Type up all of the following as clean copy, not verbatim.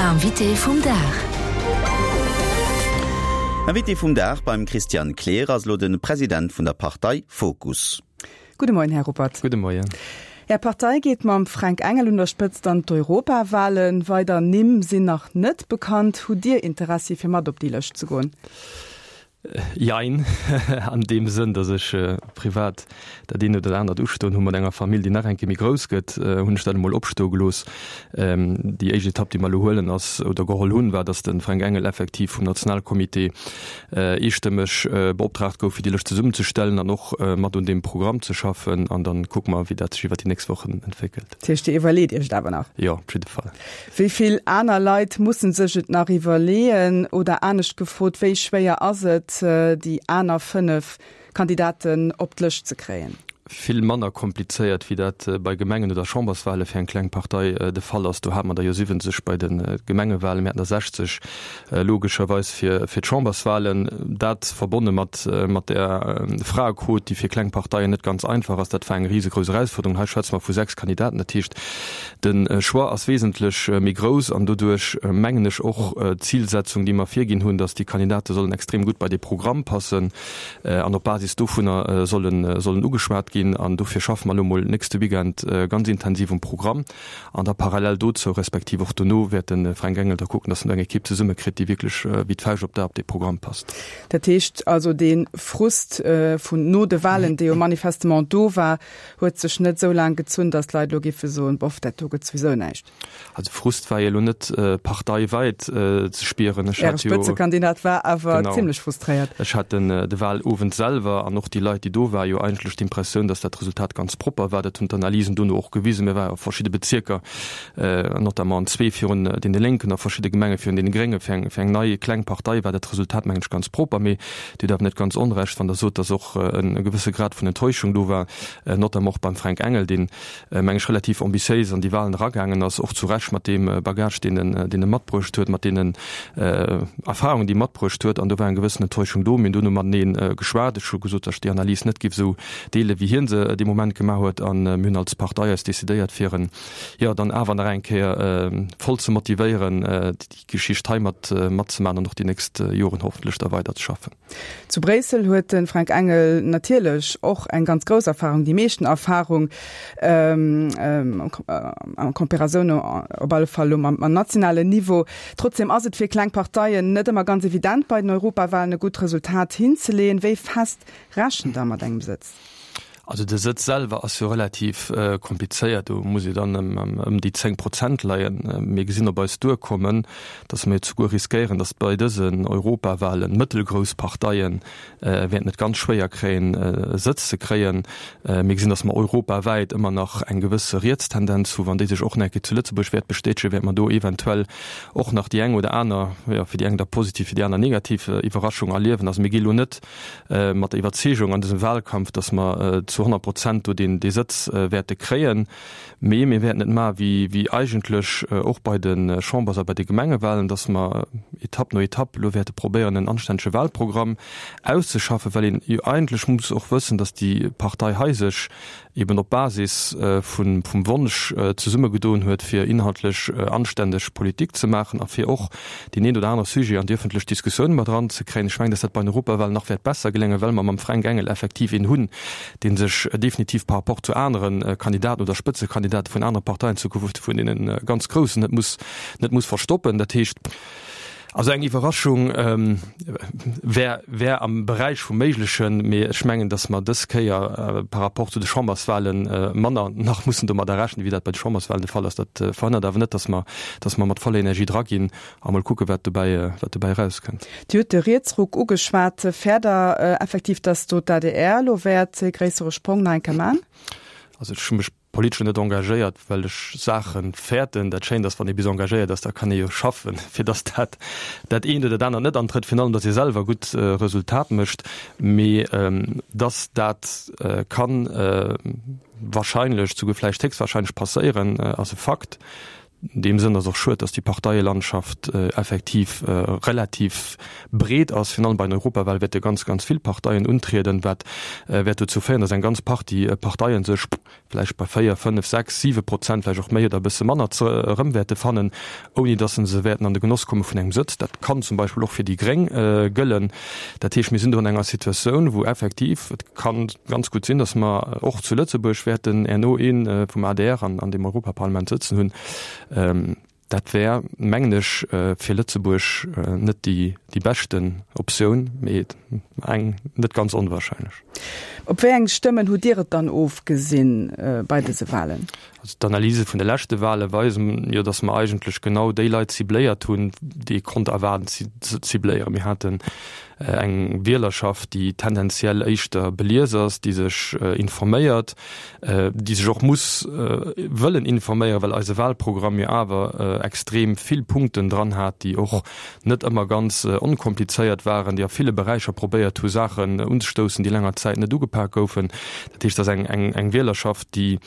Invité vum Dag. Invité vum Dag beim Christian Kleer ass elo de President vun der Partei Fokus. Gudde Moien, Här Ruppert. Gudde Moien. Är Partei geet mam Fränk Engel un der Spëtzt an d'Europawahlen. Weider Nimm sinn nach net bekannt. Hutt Dir Interessi fir mat op déi Lëscht ze goen? Jein, an deem Sënn, datt ech privat dat eent oder dat anert ustoen hu mat enger Famill, déi nach eng Kéier méi grouss gëtt, hunn ech dat emol opstoe gelooss. Déi éischt Etapp, déi mer elo huelen ass, oder geholl hunn, war, datt de Fränk Engel effektiv vum Nationalcomité eestëmmeg beoptraagt gouf, fir déi Lëscht zesummenzestellen an och mat un deem Programm ze schaffen. An da kucke mer, wéi dat sech iwwer déi nächst Wochen entwéckelt. Dat heescht, Dir iwwerleet Iech et awer nach? Jo, op jidde Fall. Wéi vill aner Leit musse sech et nach iwwerleeën? Oder anescht gefrot, wéi schwéier ass et, déi aner 5 Kandidaten op d'Lëscht ze kréien? Vill manner komplizéiert, wéi dat bei Gemengen oder Chamberswale fir eng kleng Partei de Fall ass. Do hate mer der jo 70 bei de Gemengewalen, mir haten der 60 logescherweis fir d'Chamberswalen. Dat verbonne mat mat der Fraequot, déi fir kleng Parteien net ganz einfach ass, dat war eng risegrouss Erausfuerderung. Hei schwätze mer vu 6 Kandidaten, dat heescht, De Choix ass wesentlech méi grouss an doduerch mengen ech och d'Zilsetzung, déi mer virginn hunn, datt déi Kandidate sollen extrem gutt bei dee Programm passen an op Basis dovunner sollen sollen ugeschwat ginn. An dofir schaffe mer elo mol nächste Weekend ganz intensiv um Programm an da parallel dozou, respektiv och dono wäert de Fränk Engel da kucken, datt en do eng Ekipp zesummekritt, déi wierklech wéi d'Fauscht op d'A op dee Programm passt. Dat heescht also, dee Frust vun no de Wahlen, dee jo manifestement do war, Huet sech net esou laang gezunn, datt d'Leit elo géife soen, boff, dat do gëtt souwisou näischt. Also Frust war jo elo net parteiwäit ze spieren. Ech hat jo. Äre Spëtzekandidat war awer zimlech frustréiert. Ech hat den de Wahlowend selwer an och déi Leit, déi do waren, jo eigentlech d'Impressioun, datt dat Resultat ganz propper war. Dat hunn d'Analysen dono och gewisen. Mir waren a verschidde Bezierker, notamment an zwee virun deene Lénken, a verschidde Gemenge virun deene Gréngen. Fir eng fir eng nei kleng Partei war dat Resultat, mengen ech, ganz propper. Mee Dir hutt awer net ganz Onrecht, wann Der sot, datt och e gewësse Grad vun Enttäuschung do war, notamment och beim Fränk Engel, deen, meng ech, relativ ambitiéis an déi Wahlen eragaangen ass, och zu Recht mat deem Bagage, deen en, deen e matbruecht huet, mat deenen Erfahrungen, déi e matbruecht huet. An do war eng gewëssen Enttäuschung do. Mir hunn dono matenee geschwat. Ech hu gesot, datt ech déi Analys net géif esou deelen, wéi hie se dee Moment gemaach huet. A mir hunn als Partei eis decidéiert, fir en, jo, dann awer nach eng Kéier voll ze motivéieren, Geschicht hei mat matzemaachen an och déi nächst Joren hoffentlech da weider ze schaffen. Zu Bréissel huet de Fränk Engel natierlech och eng ganz grouss Erfahrung, déi meeschten Erfahrung en Comparaison op alle Fall elo mam nationalen Niveau. Trotzdem ass et fir kleng Parteien net ëmmer ganz evident bei den Europawahlen e gutt Resultat hinzeleeën. Wéi fest rechent Der mat engem Sëtz? Also de Sëtz selwer ass jo relativ komplizéiert, do muss ee dann ëm déi 10 Prozent leien. Mir gesinn op eis duerkommen, datt mir souguer riskéieren, datt bei dësen Europawahlen mëttelgrouss Parteie wäerten et ganz schwéier kréien, e Sëtz ze kréien. Mir gesinn, datt mer europawäit ëmmer nach eng gewësse Rietstendenz hu. Wann déi sech och nach eng Kéier zu Lëtzebuerg wäert bestätegen, wäerte mer do eventuell och nach déi eng oder aner, jo fir déi eng da positiv, fir déi aner negativ Iwwerraschung erliewen. Also mir gi lo net mat der Iwwerzeegung an dësem Wahlkampf, datt mer zu 100 Prozent do deen dee Sëtz wäerte kréien. Mee mir wäerten et maache wéi wéi eigentlech och bei de Chambers a bei de Gemengewahlen, datt mer Etapp no Etapp elo wäerte probéieren en anstännege Wahlprogramm auszeschaffen, well een jo eigentlech muss och wëssen, datt déi Partei hei sech eben op Basis vun vum Wonsch zesummegedoen huet, fir inhaltlech anständeg Politik ze maachen a fir och deen een oder anere Sujet an déi öffentlech Diskussioun mat eranzekréien. Ech mengen, dass dat bei den Europawahlen nach wäert besser geléngen, well mer mam Fränk Engel effektiv een hunn, dee sech definitiv par rapport zu anere Kandidaten oder Spëtzekandidate vun anere Parteien, zukunft vun deene ganz Groussen, net muss net muss verstoppen. Dat heescht. Also eng Iwwerraschung wär, wär am Beräich vum Méiglechen, mee ech mengen, datt mer dës Kéier par rapport zu de Chamberswahlen manner nach mussen domadder rechnen, wéi dat bei de Chamberswahlen de Fall ass. Dat verhënnert awer net, datt mer, datt mer mat voller Energie draginn a mol kucken, wat dobäi, wat dobäi erauskënnt. Dir hutt de Rietsruck ugeschwat. Fäert Der effektiv, datt do d'ADR elo wäert e gréissere Sprong nach eng Kéier man? Also ech hu mech politesch net engagéiert, well ech Saache fäerten. Dat Schéint ass, wann ee bis engagéiert ass, da kann ee jo schaffen, fir datt dat dat eent oder dat anert net antrëtt, virun allem datt ee selwer gutt Resultat mécht. Mee datt dat ka wahrscheinlech, souguer vläicht héchstwahrscheinlech passéieren, ass e Fakt. An deem Sënn ass och schued, datt déi Parteielandschaft effektiv relativ breet ass. Virun allem bei den Europawale wäerte ganz, ganz vill Parteien untrieden, wat wäert dozou féieren, datt eng ganz Partie Parteien sech vläicht bei 4, 5, 6, 7 Prozent, vläicht och méi oder e bësse manner, erëm wäerte fannen, ouni datt se wäerten an de Genoss komme vun engem Sëtz. Dat kann zum Beispill och fir déi Gréng gëllen. Dat heescht, mir sinn do an enger Situatioun, wou effektiv et ka ganz gutt sinn, datt mer och zu Lëtzebuerg wäerten herno ee vum adr an deem Europaparlament sëtzen hunn. Dat wär, mengen ech, fir Lëtzebuerg net déi beschten Optioun, mee eng net ganz onwahrscheinlech. Op wéi eng Stëmmen hutt Dir et dann ofgesinn bei dëse Wahlen? Also d'Analyse vun de leschte Wahle weisen jo, datt mer eigentlech genau déi Leit cibléiert hunn, déi ee konnt erwaarden ze cibléieren. Mir haten eng Wielerschaft, déi tendenziell éischter belies ass, déi sech informéiert, déi sech och muss wëllen informéieren, well eise Wahlprogramm jo awer extrem vill Punkten dran hat, déi och net ëmmer ganz onkomplizéiert waren, déi a ville Beräicher probéiert hu Saachen unzestoussen, déi länger Zäit net ugepak goufen. Dat heescht, et ass eng Wielerschaft, déi,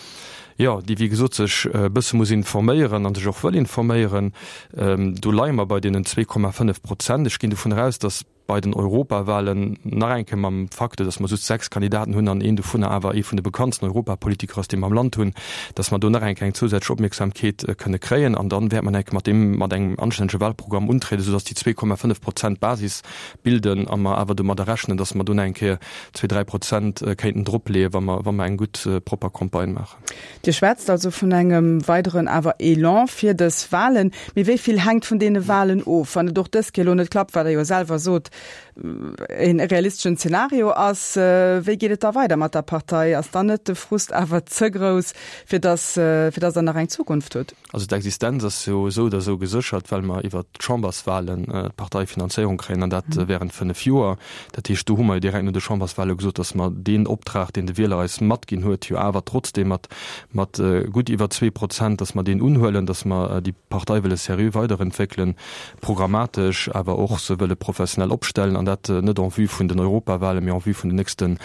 jo, déi wéi gesot sech e bësse muss informéieren a sech och wëll informéieren. Do leie mer bei deenen 2,5 Prozent. Ech ginn dovun eraus, datt bei den Europawahlen nach eng Kéier mam Facteur, datt mer just 6 Kandidaten hunn an een dovunner awer ee vun de bekanntsten Europapolitiker ass, dee mer am Land hunn, datt mer do nach eng Kéier eng zousätzlech Opmierksamkeet kënne kréien. An dann wäert mer nach eng Kéier mat deem, mat engem anstännege Wahlprogramm untrieden, soudatt déi 2,5 Prozent d'Basis bilden a mer awer domadder rechnen, datt mer do nach eng Kéier zwee, dräi Prozent kéinten dropleeën, wa mer, wa mer eng gutt, propper Campagne maachen. Dir schwätzt also vun engem weideren awer Elan fir dës Wahlen. Mee wéi vill hänkt vun deene Wahlen of? Wann et och dës Kéier elo net klappt, wat Der jo selwer sot, e realisteschen Zeenario ass, wéi geet et da weider mat der Partei? Ass dann net de Frust awer ze grouss, fir dass, fir dass Der nach eng Zukunft hutt? Also d'Existenz ass jo esou oder esou geséchert, well mer iwwert d'Chamberswahlen d'Parteifinanzéierung kréien, an dat während fënnef Joer. Dat heescht, do hu mer jo direkt no de Chamberswahle gesot, datt mer deen Optrag, deen de Wieler eis matginn huet, jo awer trotzdeem mat mat gutt iwwer 2%, datt mer deen unhuelen, datt mer déi Partei wëlle seriö weiderentwéckelen, programmatesch, awer och se wëlle professionell opstellen, an dat net en vue vun den Europawahlen, mee en vue vun den nächste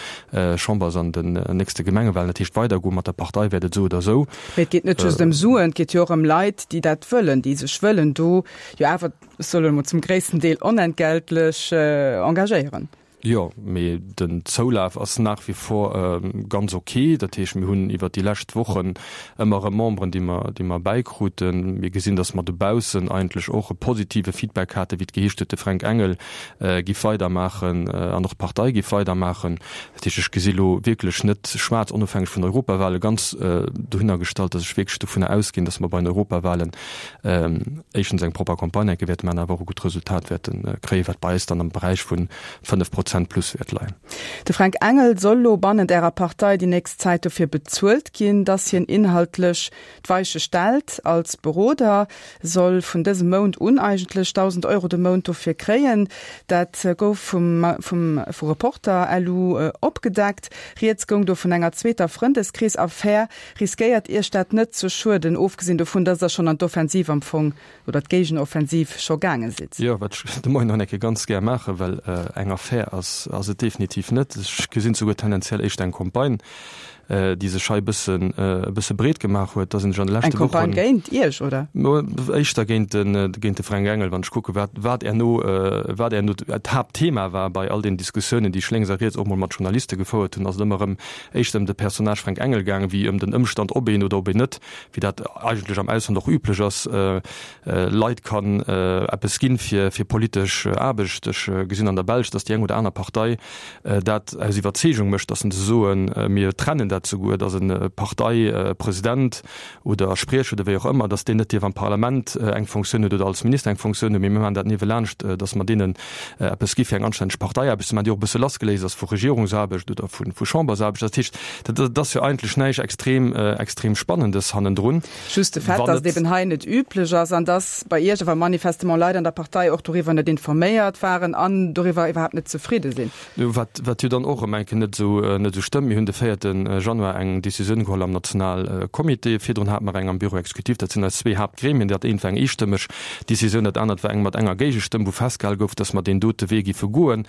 Chambers an den nächste Gemengewahlen. Dat heescht, weidergoe mat der Partei wäert et esou oder esou. Mee et geet net just ëm Suen, et geet jo och ëm Leit, déi dat wëllen, déi sech wëllen do jo awer, ech soen elo mol, zum gréissten Deel onentgeltlech engagéieren. Jo, mee den Zoulaf ass nach wie vor ganz ok. Dat heescht, mir hunn iwwert déi lescht Wochen ëmmer erëm Memberen, déi mer, déi mer bäikruten. Mir gesinn, datt mer dobaussen eigentlech och e positive Feedback haten, wéi et geheescht huet, de Fränk Engel giff weidermaachen an och d'Partei giff weidermaachen. Dat heescht, ech gesi lo wierklech net schwaarz, onofhängeg vun den Europawale, ganz dohinner gestallt, datt ech wierklech dovunner ausginn, datt mer bei den Europawalen éischtens eng propper Campagne enke wäerte maachen, awer och e gutt Resultat wäerte kréien, wat bei eis dann am Beräich vu 5 Prozent plus wäert leien. De Fränk Engel soll lo bannent Ärer Partei déi nächst Zäit dofir bezuelt ginn, datt hien inhaltlech D'Weiche stellt als Beroder, soll vun dësem Mount un eigentlech 1.000 Euro de Mount dofir kréien. Dat gouf vum vum vu Reporter lu opgedeckt. Rieds goung do vun enger zweeter Frëndeskrees-Affär. Riskéiert Iech dat net ze schueden, ofgesinn dovun, datt Der schonn an d'Offensiv am Fong oder d'Géigenoffensiv scho gaange sidd? Jo, wat ech de Moien nach eng Kéier ganz gär maachen, well eng Affär ass ass et definitiv net. Ech gesinn souguer tendenziell éischter eng Campagne. déi sech hei e bëssen, e bësse breet gemaach huet, da sinn ech an de leschte Wochen. Eng Campagne géint Iech, oder? Éischter géint den, géint de Fränk Engel, wann ech kucke wat, wat herno, wat herno d'Haaptthema war bei all den Diskussiounen, déi ech lénks a riets och mol mat Journaliste gefouert hunn, ass et ëmmer erëm éischter ëm de Personnage Fränk Engel gaangen, wéi ëm den Ëmstand, ob een oder ob een net, wéi dat eigentlech am Ausland och üblech ass, Leit kann eppes ginn fir, fir politesch Aarbecht. Ech gesinn an der Belsch, datt déi eng oder aner Partei dat aus Iwwerzeegung mécht, datt se soen, mir trennen dat souguer, datt e Parteipresident oder Spriecher oder wéi och ëmmer, datt deen net dierf am Parlament eng Fonctioun huet oder als Minister eng Fonctioun huet, mee mir maachen dat niewelaanscht, datt mer deenen eppes gi fir eng anstänneg Parteiaarbecht ze maachen, déi och e bësse lassgeléist ass vu Regierungsaarbecht oder vu Chambersaarbecht. Dat heescht, dat ass jo eigentlech näischt extrem, extrem Spannendes hannendrun. Just de Fait, datt et eben hei net üblech ass an datt bei Iech awer manifestement Leit an der Partei och doriwwer net informéiert waren an doriwwer iwwerhaapt net zefridde sinn. Wat, wat jo dann och erëm eng Kéier net esou, net esou stëmmt. Mir hunn de véierte Januar eng Decisioun geholl am Nationalcomité. Virdrun hate mer eng am Bureau exécutif. Dat sinn eis zwee Haaptgremien. Dat eent war eng eestëmmeg Decisioun, dat anert war eng mat enger Géigestëmm, wou festgehale gouf, datt mer deen dote Wee giffe goen.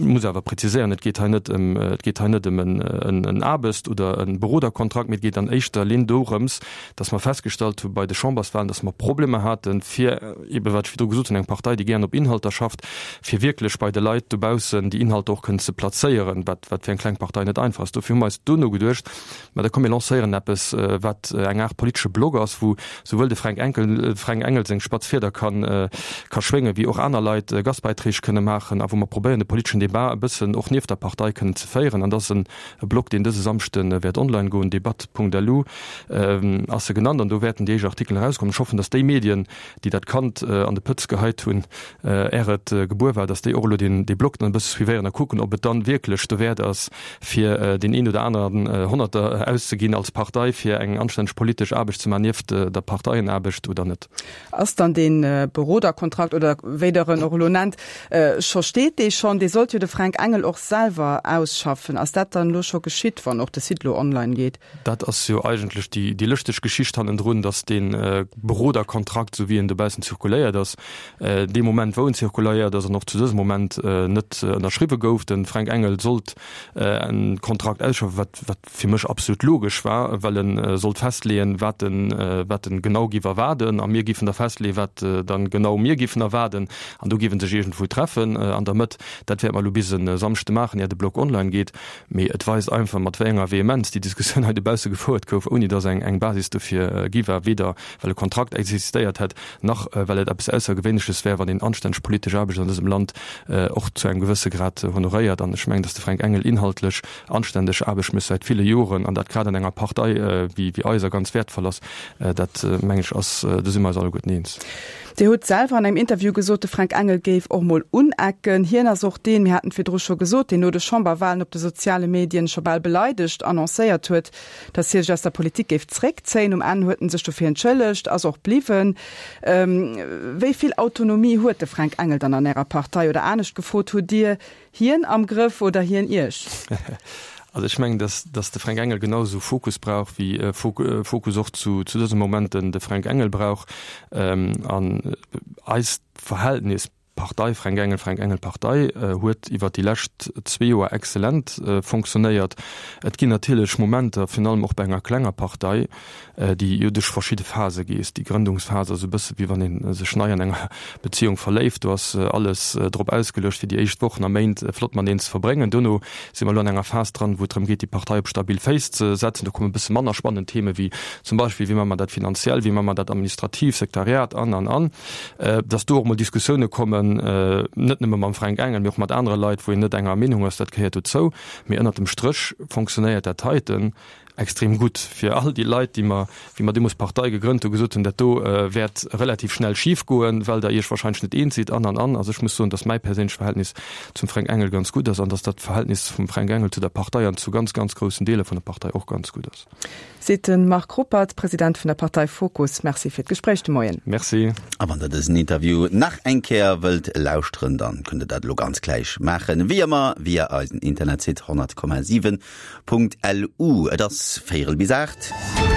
Muss awer präziséieren, et geet hei net ëm, et geet hei net ëm en Aarbecht oder e Beroderkontrakt, mee et geet an éischter Linn dorëms, dass mer festgestallt hu bei de Chamberswahlen, dass mer Problemer haten, fir eebe wat ech virdru gesot hunn, eng Partei, déi gären op Inhalter schafft, fir wierklech bei de Leit dobaussen déi Inhalter och kënnen ze plazéieren, wat wat fir eng kleng Partei net einfach ass. Dofir hu mer eis duerno geduecht, Mä da komm mir lancéieren eppes, wat eng Aart politesche Blog ass, wou souwuel de Fränk Enkel, Fränk Engel seng spatz Fieder kann, ka schwéngen, wéi och aner Leit Gastbeiträg kënne maachen a wou mer probéieren, de politeschen Debat e bëssen och nieft der Partei kënnen ze féieren. An dat ass en Blog, deen dëse Samschde wäert online goen, debatt.lu ass e genannt, an do wäerten déi éischt Artikelen erauskommen. Ech hoffen, datt déi Medien, déi dat Kand an de Pëtz geheit hunn, är et gebuer war, dass déi och elo deen dee Blog dann e bësse suivéieren a kucken, ob et dann wierklech dowäert ass, fir deen een oder aneren Honnerter auszeginn als Partei, fir eng anstänneg politesch Aarbecht ze maachen nieft der Parteienaarbecht oder net. Ass dann dee Beroderkontrakt, oder wéi Der en och elo nennt, scho, steet dee schonn? Dee sollt jo de Fränk Engel och selwer ausschaffen. Ass dat dann elo scho geschitt, wann och de Site elo online geet? Dat ass jo eigentlech déi lëschteg Geschicht hannendrun, datt dee Beroderkontrakt, esou wéi en dobaussen zirkuléiert ass, dee Moment wou en zirkuléiert ass an och zu dësem Moment net ënnerschriwwe gouf. De Fränk Engel sollt e Kontrakt ausschaffen, wat wat fir mech absolut logesch war, well e sollt festleeën, wat en wat en genau giff erwaarden a mir giffen da festleeën, wat dann genau mir giffen erwaarden an do giff e sech iergendwou treffen an der Mëtt. Dat wäerte mer elo bis e Samschde maachen, ier de Blog online geet. Mee et weist einfach, mat wéi enger Vehemenz déi Diskussioun hei dobausse gefouert gouf, ouni datt eng eng Basis dofir gi war, weder well e Kontrakt existéiert hätt, nach well et eppes Aussergewéinleches wär, wann een anstänneg politesch Aarbecht an dësem Land och zu engem gewësse Grad honoréiert. An ech mengen, datt de Fränk Engel inhaltlech anstänneg Aarbecht mécht säit ville Joren, an dat grad an enger Partei wéi eiser ganz wäertvoll ass. Dat, mengen ech, ass, do si mer eis alleguerten eens. Dir hutt selwer an engem Interview gesot, de Fränk Engel géif och mol unecken. Hien ass och deen, mir haten et virdru scho gesot, deen no de Chamberwahlen op de soziale Medien scho bal beleidegt annoncéiert huet, datt hie sech aus der Politik géif zréckzéien. Um Enn huet en sech dofir entschëllegt, ass och bliwwen. Wéi vill Autonomie huet de Fränk Engel dann an Ärer Partei? Oder anescht gefrot, hutt Dir hien am Grëff oder hien Iech? Also ech mengen, datt datt de Fränk Engel genau esou Fokus brauch, wéi Fokus och zu zu dësem Moment den de Fränk Engel brauch. An eist Verhältnis Partei Fränk Engel, Fränk Engel Partei huet iwwer déi lescht zwee Joer exzellent fonctionnéiert. Et ginn natierlech Momenter, virun allem och bei enger klenger Partei, déi jo duerch verschidde Phase gees. Déi Grëndungsphas ass e bësse wéi wann ee sech nei an enger Beziehung verléift. Do ass alles drop ausgeluecht, fir déi éischt Wochen a Méint flott mateneen ze verbréngen. Dono si mer elo an enger Phas dran, wou et drëm geet, déi Partei op stabil Féiss ze setzen. Do komme e bësse manner spannend Theme wéi zum Beispill, wéi maache mer dat finanziell, wéi maache mer dat administrativ, Sekretariat an, an, an. Datt do och mol Diskussioune kommen, net nëmme mam Fränk Engel, mee och mat anere Leit, wou een net enger Meenung ass, dat gehéiert dozou. Mee ënnert dem Stréch fonctionnéiert dat heiten extrem gutt fir all déi Leit, déi mer, wéi mer deemools d'Partei gegrënnt hunn, gesot hunn, dat do wäert relativ schnell schif goen, well Der Iech wahrscheinlech net eens sidd an, an, an. Also ech muss soen, datt mäi perséinlecht Verhältnis zum Fränk Engel ganz gutt ass an datt dat Verhältnis vum Fränk Engel zu der Partei an zu ganz, ganz groussen Deeler vun der Partei och ganz gutt ass. Seet de Marc Ruppert, President vun der Partei Fokus. Merci fir d'Gespréich de Moien. Merci. A wann der dësen Interview nach eng Kéier wëllt lauschteren, dann kënnt der dat elo ganz gläich maachen, wéi ëmmer via eisen Internetsite 100,7.lu. Et ass véierel bis 8.